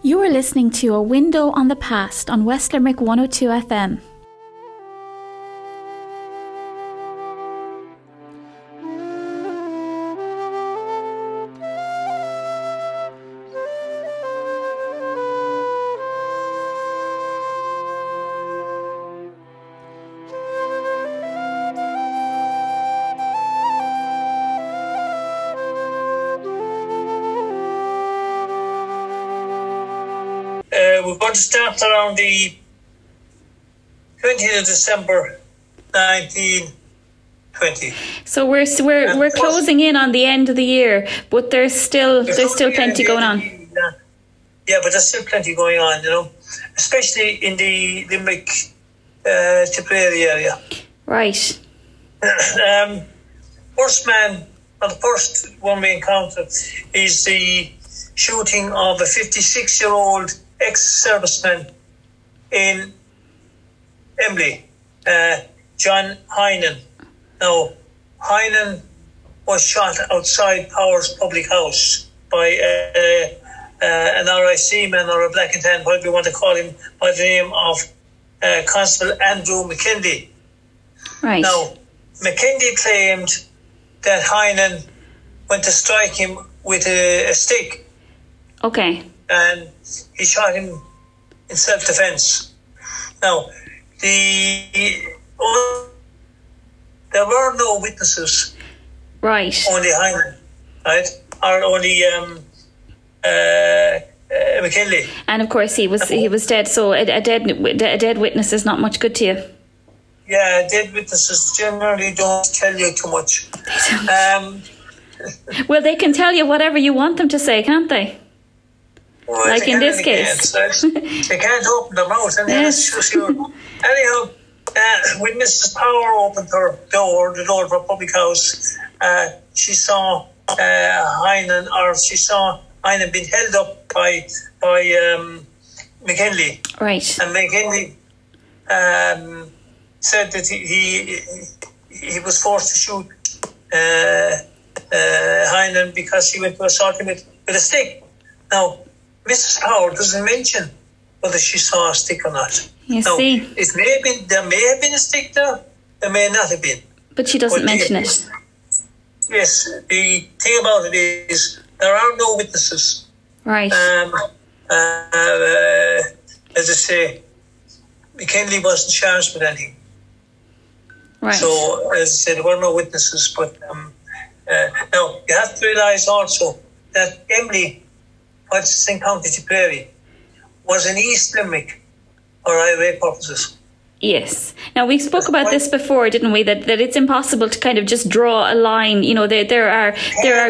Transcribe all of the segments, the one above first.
You are listening to A Window on the Past on West Limerick 102 FM. We're going to start around the 20th of December 1920. So we're closing in on the end of the year, but there's still plenty going on. Yeah, but there's still plenty going on, especially in the Limerick Tipperary area. Right. The first one we encountered is the shooting of a 56-year-old ex-serviceman in Emly, John Hynan. Now, Hynan was shot outside Powers Public House by an RIC man or a black and tan, whatever you want to call him, by the name of Constable Andrew McKinley. Right. Now, McKinley claimed that Hynan went to strike him with a stick. Okay. And he shot him in self-defense. Now, there were no witnesses. Right. Only Hyman, right? Or only McKinley. And of course he was dead. So a dead witness is not much good to you. Yeah, dead witnesses generally don't tell you too much. Well, they can tell you whatever you want them to say, can't they? Well, like in this case. They can't open their mouth. And yes. Anyhow, when Mrs. Power opened her door, the door of her public house, she saw Hynan being held up by McKinley. Right. And McKinley said that he was forced to shoot Hynan because he went to assault him with a stick. Now, Mrs. Power doesn't mention whether she saw a stick or not. See. There may have been a stick there may not have been. But she doesn't mention it. Yes, the thing about it is there are no witnesses. Right. As I say, McKinley wasn't charged with anything. Right. So, as I said, there were no witnesses. But now, you have to realise also that Emly, what's in County Tipperary, was in East Limerick for IRA purposes. Yes. Now, we spoke about this before, didn't we? That it's impossible to kind of just draw a line. There are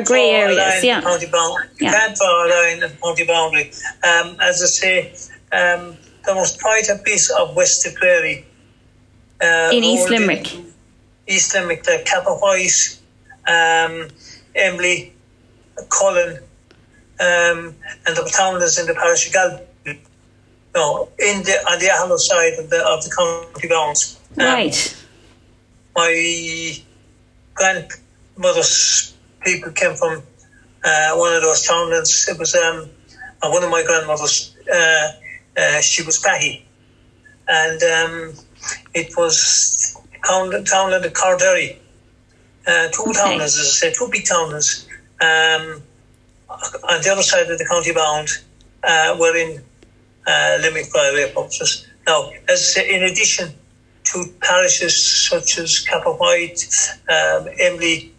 grey areas. Yeah. You can't draw a line at the county boundary. As I say, there was quite a piece of West Tipperary. In East Limerick. East Limerick, like Kappa White, Emly, Cullen, and the town is in the parish of Galway. No, on the Ahallow side of the county bounds. Right. My grandmother's people came from one of those townlands. It was one of my grandmothers. She was Patty, and it was townland of Carderry. Two townlands, as I said, two big townlands. On the other side of the county bound, were in Limerick by way of purposes. Now, as I say, in addition to parishes such as Kappa White, Emly,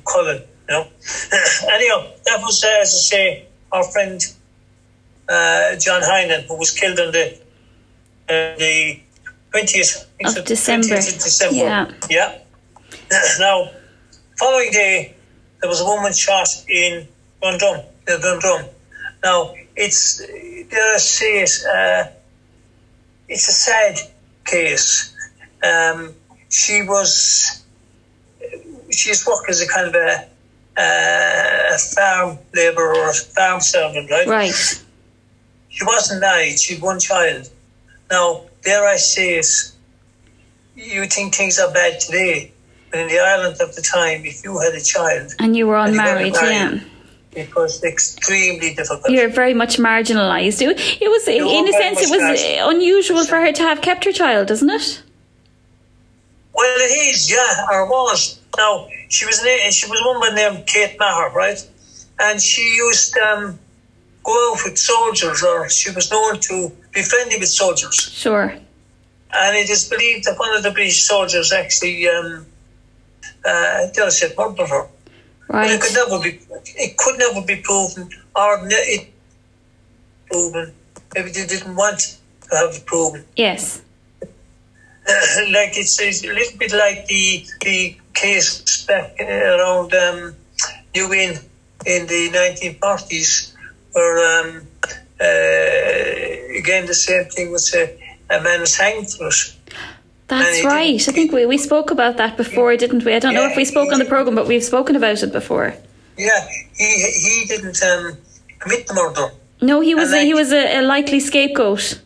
Cullen, Anyhow, that was, as I say, our friend John Hynan, who was killed on the 20th of December. Yeah. Now, following day, there was a woman shot in Dundrum. Now, it's a sad case. She worked as a kind of a farm labourer or a farm servant, right? Right. She wasn't married. She had one child. Now, dare I say it, you think things are bad today, but in the Ireland of the time, if you had a child and you were unmarried, yeah. It was extremely difficult. You're very much marginalised. It was, in a sense, it was unusual for her to have kept her child, isn't it? Well, it is, yeah, or was. Now, she was a woman named Kate Maher, right? And she used to go out with soldiers, or she was known to be friendly with soldiers. Sure. And it is believed that one of the British soldiers actually murdered her. Right. But it could never be proven, or it proven. Maybe they didn't want to have it proven. Yes. Like it's a little bit like the case back around New Inn in the 1940s, where again the same thing was a man was hanged for it. That's right. I think we spoke about that before, didn't we? I don't know if we spoke on the programme, but we've spoken about it before. Yeah, he didn't commit the murder. No, he was a likely scapegoat.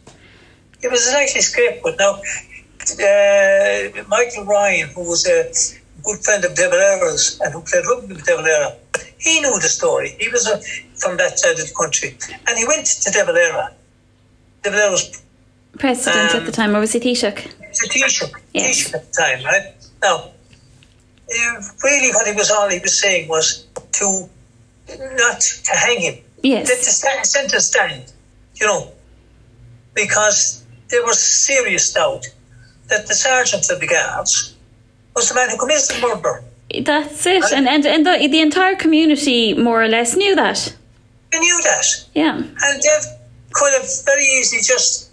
He was a likely scapegoat. Now, Michael Ryan, who was a good friend of De Valera's and who played rugby with De Valera, he knew the story. He was from that side of the country. And he went to De Valera. De Valera was president at the time, or was he Taoiseach? Taoiseach. Yes. Taoiseach at the time, right? Now, really what he was saying was not to hang him. Yes. To centre stand, because there was serious doubt that the sergeant of the guards was the man who committed the murder. That's it. And the entire community more or less knew that. They knew that. Yeah. And they could have very easily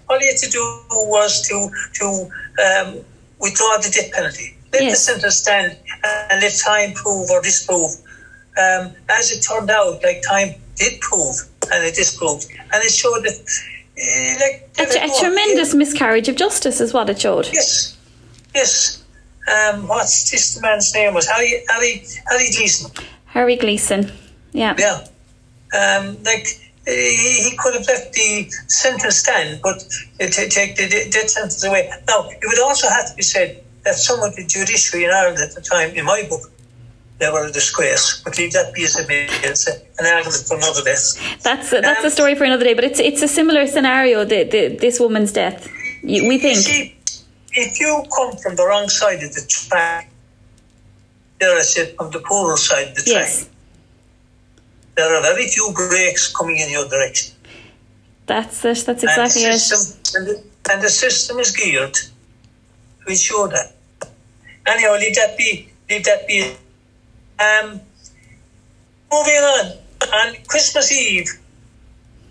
all you had to do was to withdraw the death penalty. Let the sentence stand and let time prove or disprove. As it turned out, time did prove and it disproved. And it showed that a tremendous miscarriage of justice is what it showed. Yes. What's this man's name was? Harry Gleeson. Harry Gleeson, yeah. Yeah. He could have left the sentence stand, but take the death sentence away. Now, it would also have to be said that some of the judiciary in Ireland at the time, in my book, they were a disgrace. But leave that be as it may. It's an argument for another day. That's a story for another day. But it's a similar scenario. This woman's death. We think. See, if you come from the wrong side of the track, I said from the poorer side of the track. Yes. There are very few brakes coming in your direction. That's it. That's exactly it. And the system is geared to ensure that. Anyhow, leave that be. Moving on Christmas Eve,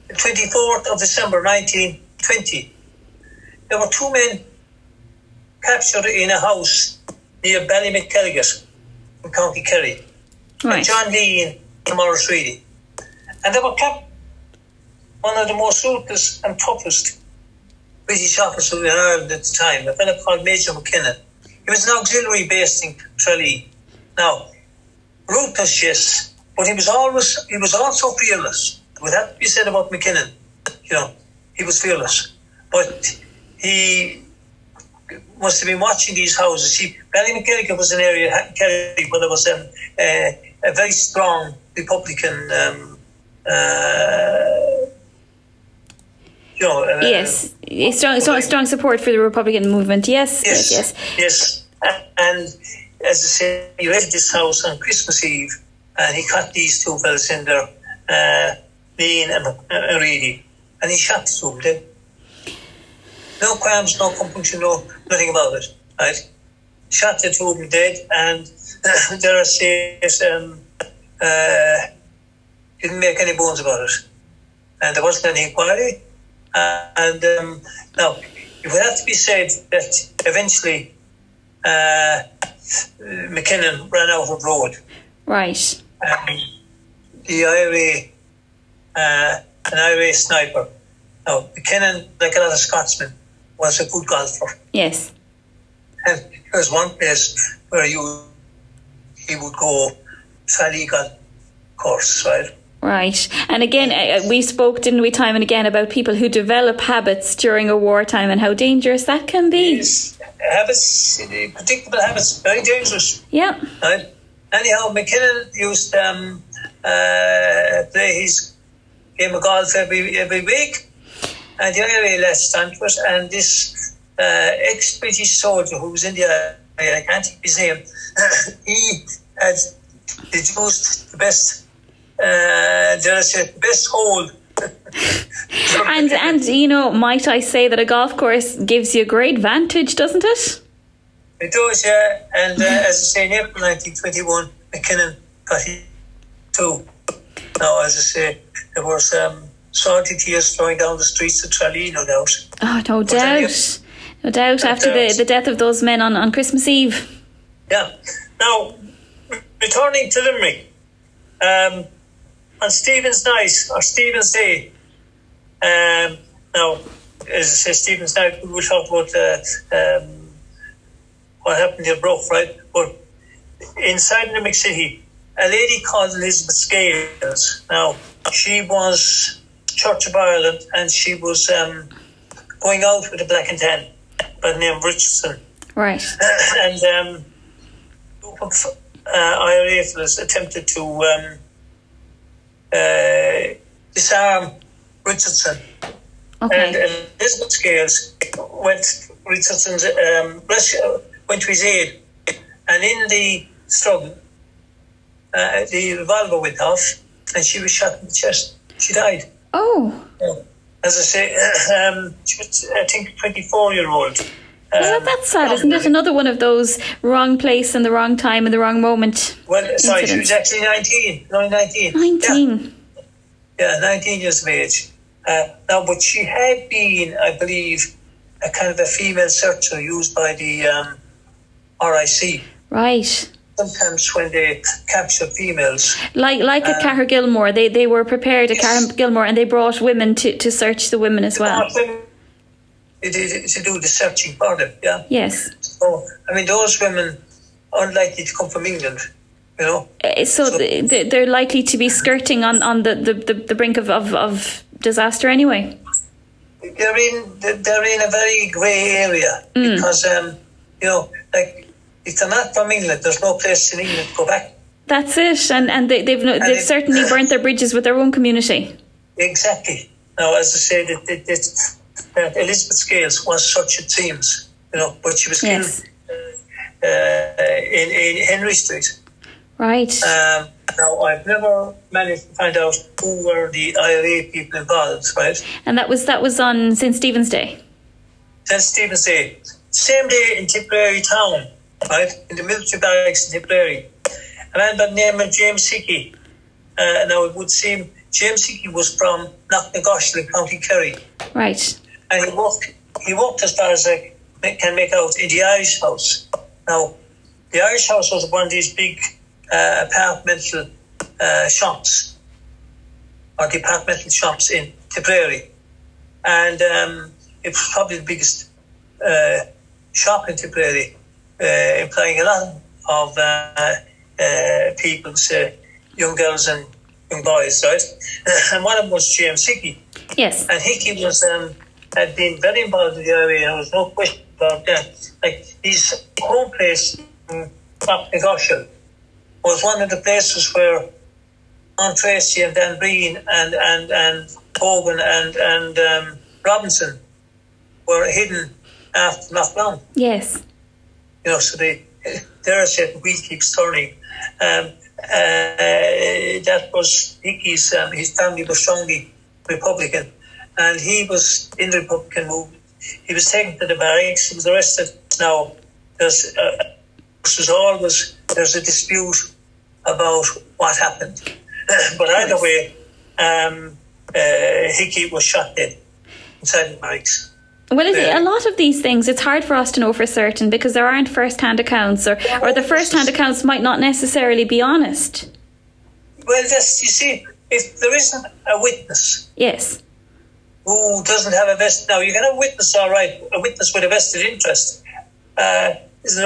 the 24th of December 1920, there were two men captured in a house near Ballymackelligot in County Kerry. Right. John Lee and Morris Reedy. And they were kept one of the most ruthless and toughest British officers in Ireland at the time, a fellow called Major McKinnon. He was an auxiliary based in Tralee. Now, ruthless, yes, but he was also fearless. Would have to be said about McKinnon. He was fearless. But he must have been watching these houses. See, Ballymackelligot was an area in Kerry where there was a very strong Republican yes, strong support for the Republican movement. Yes. And as I say, he rented this house on Christmas Eve, and he caught these two fellas in there, Lean and Reedy, and he shot the two of them. No qualms, no compunction, nothing about it. Right? Shot the two of them dead, and there are says didn't make any bones about it, and there wasn't any inquiry. And now, it would have to be said that eventually McKinnon ran out of road. Right. The an IRA sniper. Now, McKinnon, like a lot of Scotsmen, was a good golfer. Yes. And there was one place where he would go fairly golf course, right? Right. And again, we spoke, didn't we, time and again about people who develop habits during a wartime and how dangerous that can be. Yes. Habits, predictable habits, very dangerous. Yeah. Right? Anyhow, McKinnon used play his game of golf every week. And the IRA latched onto it, and this ex-British soldier who was in the IRA, I can't think of his name, he had deduced the best, the best hole. and you know, might I say that a golf course gives you a great vantage, doesn't it? It does, yeah. And as I say, in April 1921, McKinnon got hit too. Now, as I say, there was salty tears flowing down the streets of Tralee, no doubt. Oh, no doubt. No doubt after the death of those men on Christmas Eve. Yeah. Now, returning to Limerick, on Stephen's Night, or Stephen's Day, now, as I say, Stephen's Night, we will talk about what happened in Bruff, right? But inside Limerick City, a lady called Elizabeth Scales. Now, she was Church of Ireland, and she was going out with a black and tan by the name of Richardson. Right. And IRA fellas attempted to disarm Richardson. Okay. And Elizabeth Scales went Richardson's went to his aid, and in the struggle, the revolver went off, and she was shot in the chest. She died. Oh. As I say, she was, I think, 24-year-old. Well, that's sad, isn't it? Another one of those wrong place and the wrong time and the wrong moment. Well, sorry, incidents. she was actually 19. Only 19. 19. Yeah, 19 years of age. Now, but she had been, I believe, a kind of a female searcher used by the RIC. Right. Sometimes when they capture females. Like at Cahir Gilmore, they were prepared at Cahir Gilmore, and they brought women to search the women as well. To do the searching for them, yeah. Yes. So, I mean, those women are unlikely to come from England, you know. So they're likely to be skirting on the brink of disaster anyway. They're in a very grey area because you know, like, if they're not from England, there's no place in England to go back. That's it, and they've certainly burnt their bridges with their own community. Exactly. Now, as I say, that Elizabeth Scales was such, it seems, you know, but she was killed in Henry Street. Right. Now, I've never managed to find out who were the IRA people involved, right? And that was on St. Stephen's Day. St. Stephen's Day. Same day in Tipperary town, right? In the military barracks in Tipperary. A man by the name of James Hickey. Now, it would seem James Hickey was from Knocknagoshel in County Kerry. Right. And he worked as far as I can make out in the Irish House. Now, the Irish House was one of these big apartmental shops, or departmental shops in Tipperary. And it was probably the biggest shop in Tipperary, employing a lot of people, say, young girls and young boys, right? And one of them was James Hickey. Yes. And Hickey was had been very involved in the area, and there was no question about that. Like, his home place in Knocknagoshel was one of the places where John Tracy and Dan Breen and Hogan and Robinson were hidden after Knockdown. Yes. You know, so they're saying the wheel keeps turning. That was Hickey's, his family was strongly Republican, and he was in the Republican movement. He was taken to the barracks, he was arrested. Now, there's a dispute about what happened. But either way, Hickey was shot dead inside the barracks. Well, a lot of these things, it's hard for us to know for certain because there aren't first-hand accounts, or the first-hand accounts might not necessarily be honest. Well, you see, if there isn't a witness, yes, who doesn't have a vested, now you can have a witness, all right, a witness with a vested interest is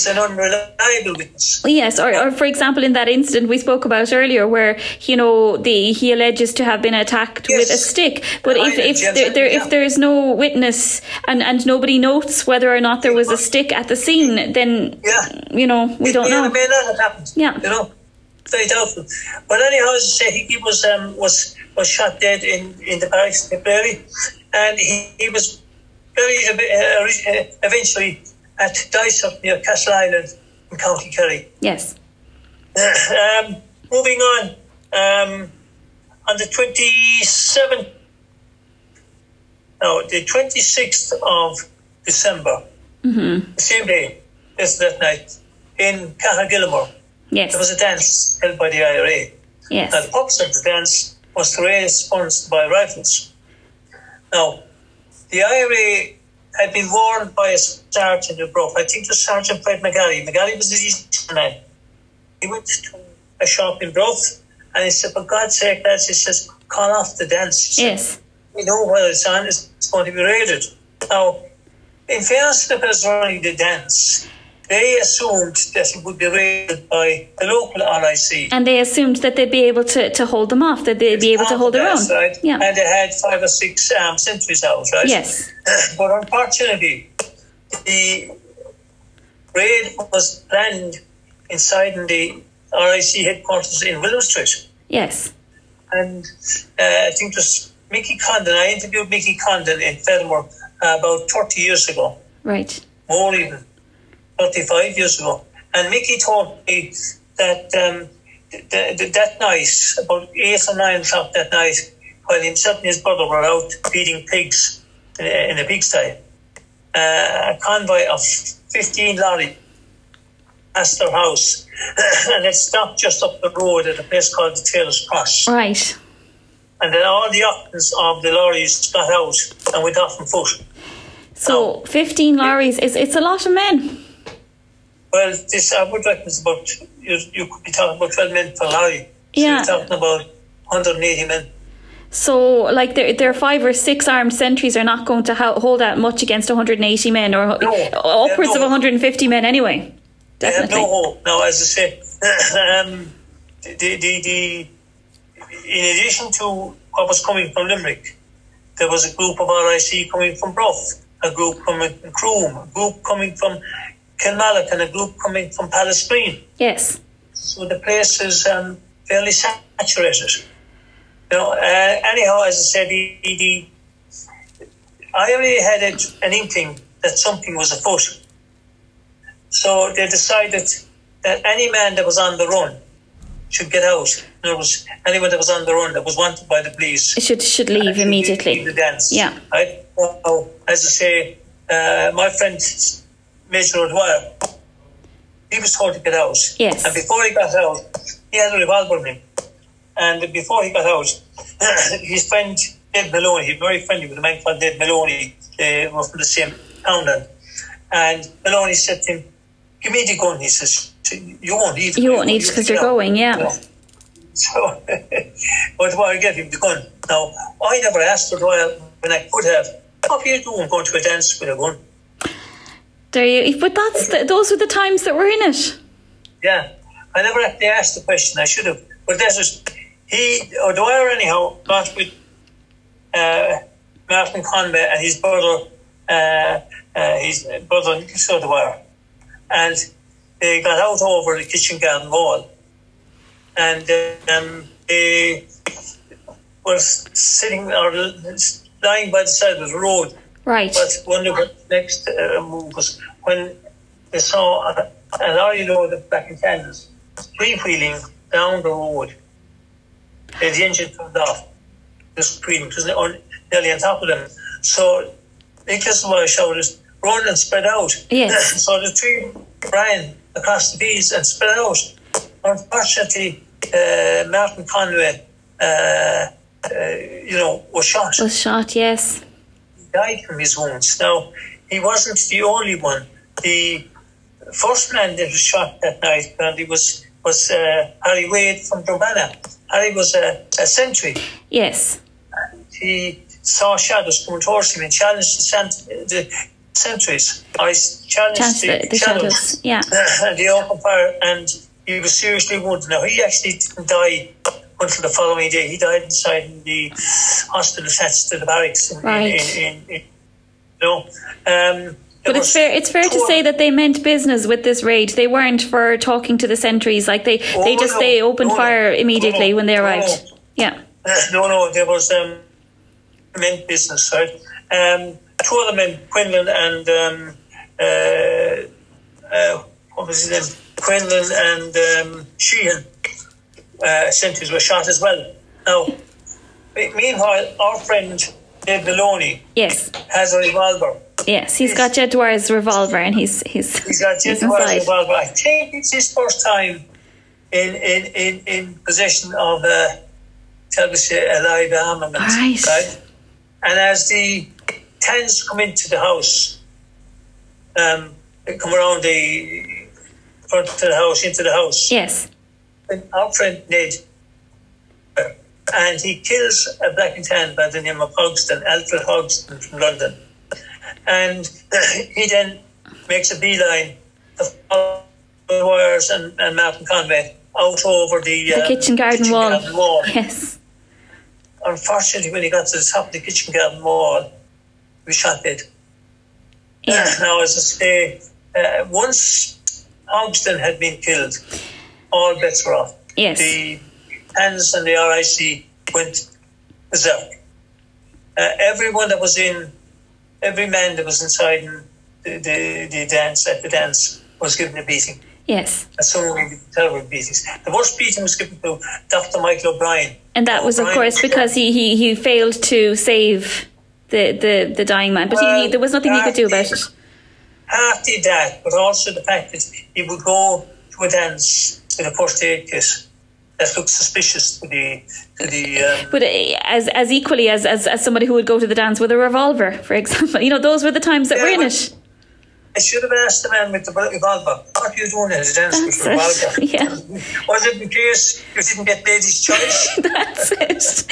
an unreliable witness. Yes, or for example, in that incident we spoke about earlier, where he alleges to have been attacked with a stick. But if there is no witness and nobody notes whether or not there was a stick at the scene, then we don't know. It may not have happened. Yeah. You know. very doubtful. But anyhow, as I say, he was shot dead in the barracks in Tipperary, and he was eventually at Dysart near Castle Island in County Kerry. Yes. Moving on the 26th of December, the same day, that night, in Cahagilmore, yes, there was a dance held by the IRA. Yes. Now, the purpose of the dance was to raise funds to buy rifles. Now, the IRA had been warned by a sergeant in Bruff. I think it was Sergeant Fred McGarry. McGarry was the DC man. He went to a shop in Bruff and he said, for God's sake, lads, he says, call off the dance. He said, yes. We know whether it's on, it's going to be raided. Now, in fairness to the person running the dance, they assumed that it would be raided by the local RIC. And they assumed that they'd be able to hold them off, that they'd be able to hold their own. Right? Yeah. And they had 5 or 6 sentries out, right? Yes. But unfortunately, the raid was planned inside the RIC headquarters in Willow Street. Yes. And I think it was Mickey Condon. I interviewed Mickey Condon in Fenimore about 30 years ago. Right. More even, 35 years ago. And Mickey told me that that night, about 8 or 9 o'clock that night, while himself and his brother were out feeding pigs in a pigsty, a convoy of 15 lorries passed their house and it stopped just up the road at a place called the Taylor's Cross. Right. And then all the occupants of the lorries got out and went off on foot. So 15 lorries, it's a lot of men. Well, this I would reckon is about, you could be talking about 12 men per lorry. So Yeah. you're talking about 180 men. So, like, their 5 or 6 armed sentries are not going to hold out much against 180 men, or upwards of 150 men anyway. Definitely. They have no hope. Now, as I say, in addition to what was coming from Limerick, there was a group of RIC coming from Bruff, a group coming from Croom, a group coming from Kilmallock, and a group coming from Pallasgreen. Yes. So the place is fairly saturated. Anyhow, as I said, the IRA had an inkling that something was afoot. So they decided that any man that was on the run should get out. In other words, anyone that was on the run that was wanted by the police should leave immediately. Leave the dance. Yeah. Right? Well, as I say, my friend Major O'Dwyer, he was told to get out. Yes. And before he got out, he had a revolver in him. And before he got out, his friend Ned Maloney, he was very friendly with a man called Ned Maloney, they were from the same townland. And Maloney said to him, give me the gun. He says, you won't need it. You won't need it because you're going, yeah. Yeah. So, O'Dwyer gave him the gun. Now, I never asked O'Dwyer when I could have, what are you doing going to a dance with a gun? But those were the times that were in it. Yeah, I never actually asked the question. I should have. But that was, O'Dwyer anyhow, got with Martin Conway and his brother Nicholas O'Dwyer. And they got out over the kitchen garden wall. And they were sitting or lying by the side of the road. Right. But wonder what the next move was when they saw a lorry load of black and tans freewheeling down the road. The engine turned off. This freewheeling was nearly on top of them. So Nicholas O'Dwyer shouted, run and spread out. Yes. So the three ran across the fields and spread out. Unfortunately, Martin Conway, was shot. Was shot, yes. He died from his wounds. Now, he wasn't the only one. The first man that was shot that night apparently was Harry Wade from Dromana. Harry was a sentry. Yes. And he saw shadows coming towards him and challenged the sentries. I challenged the shadows. Yeah. And they opened fire and he was seriously wounded. Now, he actually didn't die until the following day. He died inside the hospital attached to the barracks. But it's fair to say that they meant business with this raid. They weren't for talking to the sentries. Like they opened fire immediately when they arrived. Yeah. No, there was meant business, right? Two other men, Quinlan and what was his name? Quinlan and Sheehan, sentries were shot as well. Now, meanwhile, our friend Dave Maloney has a revolver. Yes, he's got Jedwar's revolver, and he's got Jedwar's revolver. I think it's his first time in possession of shall we say, a live armament. Right? And as the Tans come into the house, they come around the front of the house, into the house. Yes. And our friend Ned, and he kills a black and tan by the name of Hogston, Alfred Hogston from London. And he then makes a beeline of wires and Martin Conway out over the kitchen garden wall. Yes. Unfortunately, when he got to the top of the kitchen garden wall, he was shot dead. Yeah. Now, as I say, once Hogston had been killed, all bets were off. Yes. The Tans and the RIC went berserk. Every man that was inside the dance was given a beating. Yes. And some terrible beatings. The worst beating was given to Dr. Michael O'Brien. And that was, of course, because he failed to save the dying man. But there was nothing he could do about it. Half did that, but also the fact that he would go to a dance with a first aid kit that looked suspicious to the but as equally as somebody who would go to the dance with a revolver, for example, those were the times that were in it. I should have asked the man with the revolver, what are you doing at a dance with a revolver? Yeah. Was it in case you didn't get ladies' choice? That's it.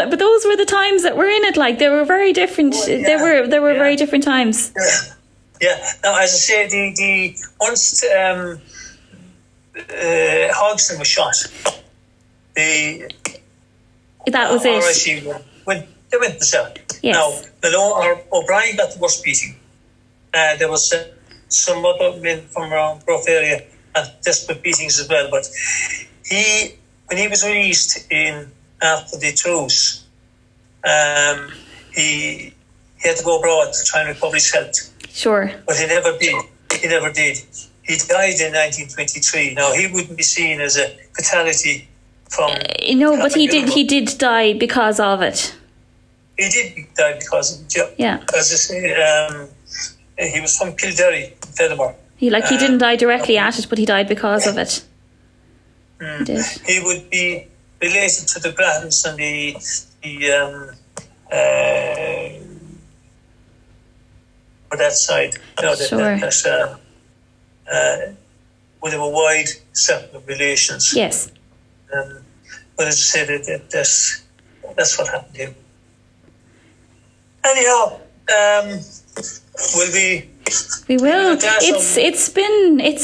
But those were the times that were in it. Like, they were very different. There were very different times. Yeah. Now, as I say, the once Hogston was shot, that was it. They went berserk. Yes. Now, O'Brien got the worst beating. There was some other men from around Brough area and desperate beatings as well. But when he was released after the truce, he had to go abroad to try and recover his health. Sure. But he never did. He died in 1923. Now, he wouldn't be seen as a fatality from... but he did die because of it. He did die because of it, yeah. As I say, he was from Kildare, Fenimore. He didn't die directly at it, but he died because of it. He did. He would be related to the Grattans and for that side. Sure. Would have a wide circle of relations. Yes. But as I said, that's what happened to him. Anyhow, we will. It's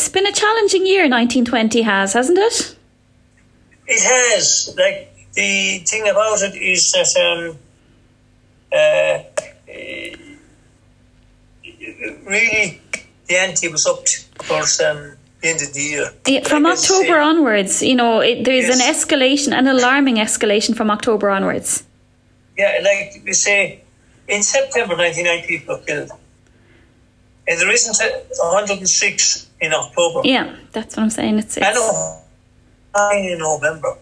been a challenging year. 1920 hasn't it? It has. Like, the thing about it is that really the ante was up towards the end of the year. Yeah, from October onwards, there's an escalation, an alarming escalation from October onwards. Yeah, like we say, in September, 99 people were killed. And there isn't 106 in October. Yeah, that's what I'm saying. It's I know. In November.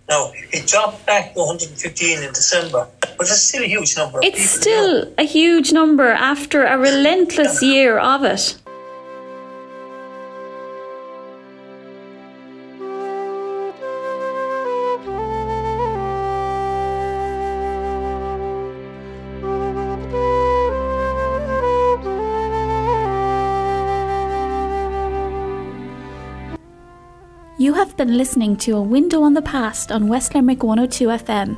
Now, it dropped back to 115 in December, but it's still a huge number. It's still a huge number after a relentless year of it. You have been listening to A Window on the Past on West Limerick 102 FM.